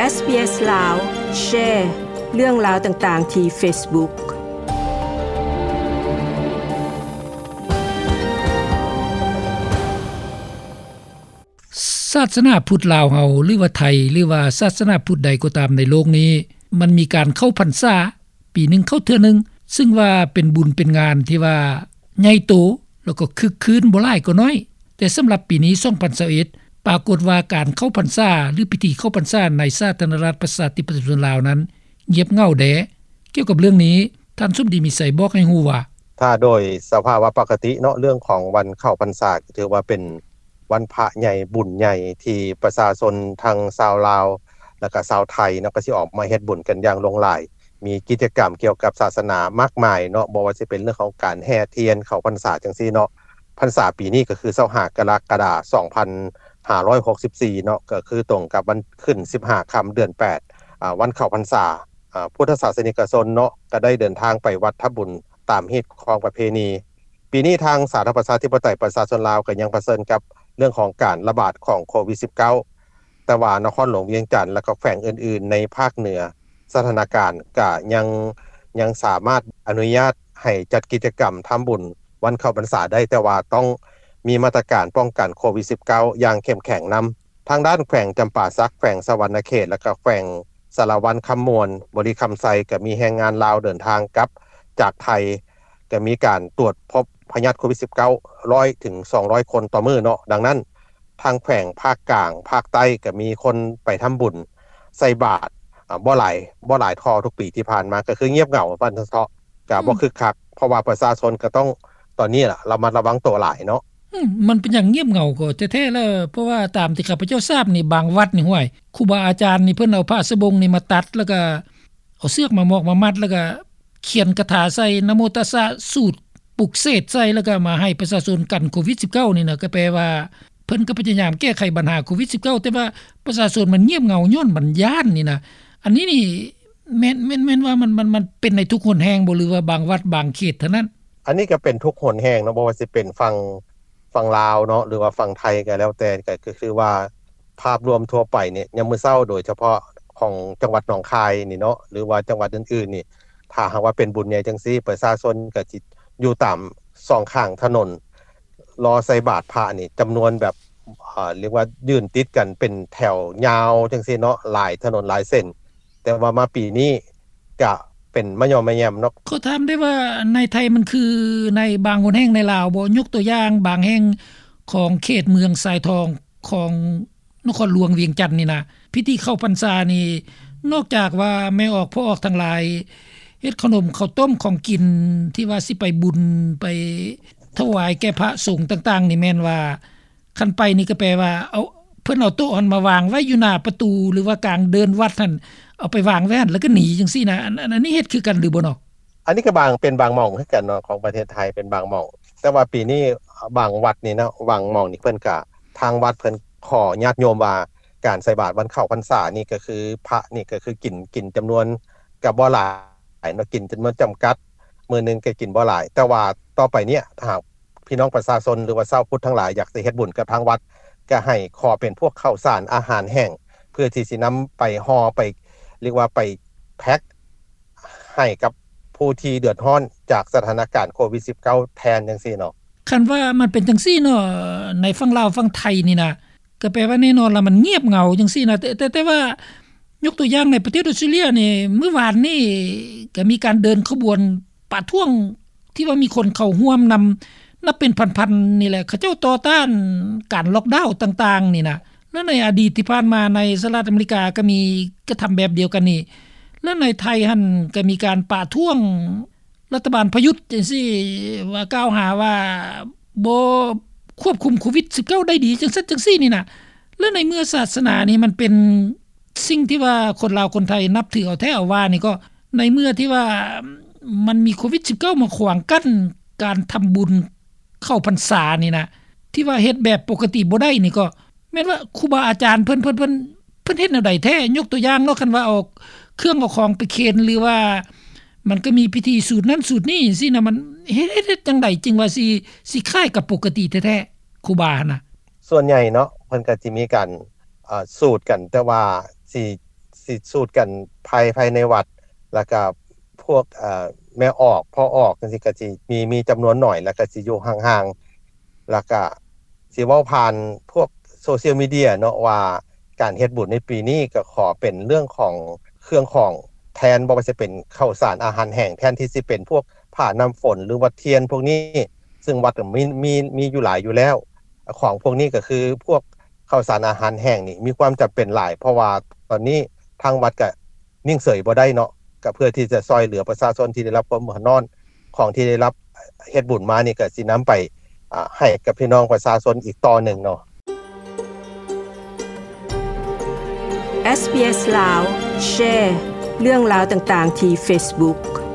ເອສບີເອສລາວ ແຊເລື່ອງລາວຕ່າງໆທີ່ເຟສບຸກ. ສາສະໜາພຸດລາວເຮົາ ຫຼືວ່າໄທ ຫຼືວ່າສາສະໜາພຸດໃດກໍຕາມໃນໂລກນີ້ ມັນມີການເຂົ້າພັນສາ ປີໜຶ່ງເຂົ້າເທື່ອໜຶ່ງ ຊຶ່ງວ່າເປັນບຸນເປັນງານທີ່ວ່າໃຫຍ່ໂຕ ແລ້ວກໍຄຶກຄື້ນບໍ່ຫຼາຍກໍໜ້ອຍ. ແຕ່ສຳລັບປີນີ້ ສອງພັນຊາວເອັດ ປາກົດວ່າການເຂົ້າພັນສາ ຫຼື ພິທີເຂົ້າພັນສາໃນສາທາລະນະລັດປະຊາທິປະໄຕປະຊາຊົນລາວນັ້ນ ງຽບເຫງົາແດ່. ກ່ຽວກັບເລື່ອງນີ້ ທ່ານສົມດີ ມີໄຊ ບອກໃຫ້ຮູ້ວ່າ ຖ້າໂດຍສະພາວະປົກກະຕິເນາະ ເລື່ອງຂອງວັນເຂົ້າພັນສາ ກໍຖືວ່າເປັນວັນພະໃຫຍ່ ບຸນໃຫຍ່ ທີ່ປະຊາຊົນທັງຊາວລາວ ແລ້ວກະຊາວໄທເນາະ ກໍຊິອອກມາເຮັດບຸນກັນຢ່າງຫຼວງຫຼາຍ. ມີກິດຈະກຳກ່ຽວກັບສາສະໜາມາກມາຍເນາະ ບໍ່ວ່າຊິເປັນເລື່ອງຂອງການແຫ່ທຽນເຂົ້າພັນສາຈັ່ງຊີ້ເນາະ. ພັນສາປີນີ້ກໍຄື ຊາວຫ້າ ກໍລະກະດາ ສອງພັນຫ້າຮ້ອຍຫົກສິບສີ່ເນາະ ກໍຄືຕົງກັບວັນຂຶ້ນ ສິບຫ້າຄ່ຳ ເດືອນແປດ ອາ ວັນເຂົ້າພັນສາ. ອາ ພຸດທະສາສະນິກະຊົນເນາະ ກໍໄດ້ເດີນທາງໄປວັດທຳບຸນຕາມຮີດຄອງປະເພນີ. ປີນີ້ທາງສາທາລະນະລັດປະຊາທິປະໄຕປະຊາຊົນລາວ ກໍຍັງປະເຊີນກັບເລື່ອງຂອງການລະບາດຂອງໂຄວິດສິບເກົ້າ ແຕ່ວ່ານະຄອນຫຼວງວຽງຈັນ ແລະ ກໍແຂວງອື່ນໆໃນພາກເໜືອ ສະຖານະການກະຍັງ ຍັງສາມາດອະນຸຍາດໃຫ້ຈັດກິດຈະກຳທຳບຸນວັນເຂົ້າພັນສາໄດ້ ແຕ່ວ່າຕ້ອງມີມາດຕະການປ້ອງກັນໂຄວິດສິບເກົ້າຢ່າງເຂັ້ມແຂງນຳ. ທາງດ້ານແຂວງຈຳປາສັກ, ແຂວງສະຫວັນນະເຂດ ແລະ ກໍແຂວງສາລະວັນຄຳມ່ວນ, ບໍລິຄຳໄຊ ກໍມີແຮງງານລາວເດີນທາງກັບຈາກໄທ ກໍມີການຕວດພົບພະຍາດໂຄວິດສິບເກົ້າ ຮ້ອຍເຖິງສອງຮ້ອຍຄົນຕໍ່ມື້ເນາະ. ດັ່ງນັ້ນ ທາງແຂວງພາກກາງ, ພາກໃຕ້ ກໍມີຄົນໄປທຳບຸນໃສ່ບາດ ອາ ບໍ່ຫຼາຍ ບໍ່ຫຼາຍເທົ່າທຸກປີທີ່ຜ່ານມາ ກໍຄືງຽບເຫງົາວ່າຊັ້ນເຖາະ ກໍບໍ່ ອືມ ຄຶກຄັກ ເພາະວ່າປະຊາຊົນກໍຕ້ອງ ຕອນນີ້ລະ ລະມັດລະວັງໂຕຫຼາຍເນາະ. ອືມ ມັນເປັນຫຍັງງຽບເຫງົາກໍແທ້ໆລະ ເພາະວ່າຕາມທີ່ຂ້າພະເຈົ້າຊາບນີ້ ບາງວັດນີ້ ຫ້ວຍ ຄູບາອາຈານນີ້ ເພິ່ນເອົາຜ້າສະບົງນີ້ມາຕັດ ແລ້ວກໍເອົາເຊືອກມາມອກມາມັດ ແລ້ວກໍຂຽນຄາຖາໃສ່ ນະໂມຕັດສະ ສູດ ປຸກເສກໃສ່ ແລ້ວກໍມາໃຫ້ປະຊາຊົນກັນໂຄວິດສິບເກົ້ານີ້ນະ ກໍແປວ່າເພິ່ນກໍພະຍາຍາມແກ້ໄຂບັນຫາໂຄວິດສິບເກົ້າ ແຕ່ວ່າປະຊາຊົນມັນງຽບເຫງົາຍ້ອນມັນຢ້ານນີ້ນະ. ອັນນີ້ນີ້ ແມ່ນ ແມ່ນ ແມ່ນວ່າມັນ ມັນ ມັນເປັນໃນທຸກຫົນແຫ່ງບໍ່ ຫຼືວ່າບາງວັດບາງເຂດເທົ່ານັ້ນ? ອັນນີ້ກໍເປັນທຸກຫົນແຫ່ງເນາະ ບໍ່ວ່າຊິເປັນຝັ່ງ ຝັ່ງລາວເນາະ ຫຼືວ່າຝັ່ງໄທກໍແລ້ວແຕ່ ກໍ ກໍຄືວ່າພາບລວມທົ່ວໄປນີ້ ຍາມມື້ເຊົ້າ ໂດຍສະເພາະຂອງຈັງຫວັດໜອງຄາຍນີ້ເນາະ ຫຼືວ່າຈັງຫວັດອື່ນໆນີ້ ຖ້າຫາກວ່າເປັນບຸນໃຫຍ່ຈັ່ງຊີ້ ປະຊາຊົນກໍຊິຢູ່ຕາມສອງຂ້າງຖະໜົນ ລໍໃສ່ບາດພະນີ້ ຈຳນວນແບບ ເອີ ລຽກວ່າຢືນຕິດກັນເປັນແຖວຍາວຈັ່ງຊີ້ເນາະ ຫຼາຍຖະໜົນຫຼາຍເສັ້ນ. ແຕ່ວ່າມາປີນີ້ກະເປັນມະຍໍ້ມະແຍມເນາະ. ຂໍຖາມໄດ້ວ່າໃນໄທມັນຄືໃນບາງຫົນແຫ່ງໃນລາວບໍ່? ຍົກຕົວຢ່າງບາງແຫ່ງຂອງເຂດເມືອງຊາຍທອງຂອງນະຄອນຫຼວງວຽງຈັນນີ້ນະ ພິທີເຂົ້າພັນສານີ້ ນອກຈາກວ່າແມ່ອອກພໍ່ອອກທັງຫຼາຍເຮັດເຂົ້າໜົມເຂົ້າຕົ້ມຂອງກິນ ທີ່ວ່າຊິໄປບຸນໄປຖວາຍແກ່ພະສົງຕ່າງໆນີ້ ແມ່ນວ່າ ຄັນໄປນີ້ກໍແປວ່າເອົາ ເພິ່ນເອົາໂຕະຫັ້ນມາວາງໄວ້ຢູ່ໜ້າປະຕູ ຫຼືວ່າກາງເດີ່ນວັດຫັ້ນ ເອົາໄປວາງໄວ້ຫັ້ນ ແລ້ວກໍໜີຈັ່ງຊີ້ນະ. ອັນ ອັນ ອັນນີ້ເຮັດຄືກັນຫຼືບໍ່ເນາະ? ອັນນີ້ກໍບາງ ເປັນບາງໝ່ອງຄືກັນເນາະ ຂອງປະເທດໄທເປັນບາງໝ່ອງ. ແຕ່ວ່າປີນີ້ບາງວັດນີ້ເນາະ ບາງໝ່ອງນີ້ເພິ່ນກະ ທາງວັດເພິ່ນຂໍຍາດໂຍມວ່າ ການໃສ່ບາດວັນເຂົ້າພັນສານີ້ກໍຄື ພະນີ້ກໍຄືກິນ ກິນຈຳນວນກໍບໍ່ຫຼາຍເນາະ ກິນຈຳນວນຈຳກັດ ມື້ໜຶ່ງກໍກິນບໍ່ຫຼາຍ. ແຕ່ວ່າຕໍ່ໄປເນີ້ຍ ຖ້າຫາກ ພີ່ນ້ອງປະຊາຊົນ ຫຼືວ່າຊາວພຸດທັງຫຼາຍ ຢາກຈະເຮັດບຸນກັບທາງວັດ ກໍໃຫ້ຂໍເປັນພວກເຂົ້າສານອາຫານແຫ້ງ ເພື່ອທີ່ຊິນຳໄປຫໍ່ ໄປ ເອີ້ນວ່າໄປແພັກໃຫ້ກັບຜູ້ທີ່ເດືອດຮ້ອນຈາກສະຖານະການໂຄວິດສິບເກົ້າ ແທນຈັ່ງຊີ້ເນາະ. ຄັນວ່າມັນເປັນຈັ່ງຊີ້ເນາະ ໃນຝັ່ງລາວຝັ່ງໄທນີ້ນະ ກໍແປວ່າແນ່ນອນລະ ມັນງຽບເຫງົາຈັ່ງຊີ້ນະ. ແຕ່ ແຕ່ ແຕ່ວ່າຍົກຕົວຢ່າງໃນປະເທດອອສເຕຣເລັຽນີ້ ມື້ວານນີ້ກໍມີການເດີນຂະບວນ ປະທ້ວງທີ່ວ່າມີຄົນເຂົ້າຮ່ວມນຳ ນັບເປັນພັນໆນີ້ແຫຼະ ເຂົາເຈົ້າຕໍ່ຕ້ານການລັອກດາວຕ່າງໆນີ້ນະ. ແລະໃນອະດີດທີ່ຜ່ານມາໃນສະຫະລັດອາເມລິກາກໍມີກະທຳແບບດຽວກັນນີ້ ແລະໃນໄທຫັ້ນກໍມີການປະທ້ວງລັດຖະບານປະຍຸດຈັ່ງຊີ້ ວ່າກ່າວຫາວ່າບໍ່ຄວບຄຸມໂຄວິດສິບເກົ້າໄດ້ດີ ຈັ່ງຊັ້ນຈັ່ງຊີ້ນີ້ນະ. ແລະໃນເມື່ອສາສະໜານີ້ມັນເປັນ ສິ່ງທີ່ວ່າຄົນລາວຄົນໄທນັບຖືເອົາແທ້ເອົາວ່ານີ້ ກໍໃນເມື່ອທີ່ວ່າມັນມີໂຄວິດສິບເກົ້າມາຂວາງກັ້ນການທຳບຸນເຂົ້າພັນສານີ້ນະ ທີ່ວ່າເຮັດແບບປົກກະຕິບໍ່ໄດ້ນີ້ ກໍແມ່ນວ່າຄູບາອາຈານເພິ່ນ ເພິ່ນ ເພິ່ນ ເພິ່ນເຮັດແນວໃດແທ້? ຍົກຕົວຢ່າງເນາະ ຄັນວ່າເອົາເຄື່ອງເອົາຂອງໄປເຄນ ຫຼືວ່າມັນກໍມີພິທີສູດນັ້ນສູດນີ້ຊີ້ນະ ມັນເຮັດ ເຮັດ ເຮັດຈັ່ງໃດຈຶ່ງວ່າຊິ ຊິຄ້າຍກັບປົກກະຕິແທ້ໆ ຄູບາຫັ້ນນະ? ສ່ວນໃຫຍ່ເນາະ ເພິ່ນກໍຊິມີການ ເອີ ສູດກັນ ແຕ່ວ່າຊິ ຊິສູດກັນພາຍ ພາຍໃນວັດ ແລ້ວກະພວກ ເອີ ແມ່ອອກ ພໍ່ອອກຈັ່ງຊີ້ ກະຊິມີ ມີຈຳນວນໜ້ອຍ ແລ້ວກະຊິຢູ່ຫ່າງໆ ແລ້ວກະຊິເວົ້າຜ່ານພວກໂຊຊຽວມີເດຍເນາະ ວ່າການເຮັດບຸນໃນປີນີ້ກະຂໍເປັນເລື່ອງຂອງເຄື່ອງຂອງແທນ ບໍ່ວ່າຈະເປັນເຂົ້າສານອາຫານແຫ້ງ ແທນທີ່ຊິເປັນພວກຜ້ານ້ຳຝົນ ຫຼືວ່າທຽນພວກນີ້ ຊຶ່ງວັດກະມີ ມີ ມີຢູ່ຫຼາຍຢູ່ແລ້ວ. ຂອງພວກນີ້ກະຄືພວກເຂົ້າສານອາຫານແຫ້ງນີ້ມີຄວາມຈຳເປັນຫຼາຍ ເພາະວ່າຕອນນີ້ທາງວັດກະນິ່ງເສີຍບໍ່ໄດ້ເນາະ ກະເພື່ອທີ່ຈະຊ່ອຍເຫຼືອປະຊາຊົນທີ່ໄດ້ຮັບຄວາມເດືອດຮ້ອນ. ຂອງທີ່ໄດ້ຮັບເຮັດບຸນມານີ້ກະຊິນຳໄປ ອາ ໃຫ້ກັບພີ່ນ້ອງປະຊາຊົນອີກຕໍ່ໜຶ່ງເນາະ. ເອສບີເອສ ລາວ ແຊເລື່ອງລາວຕ່າງໆທີ່ເຟສບຸກ.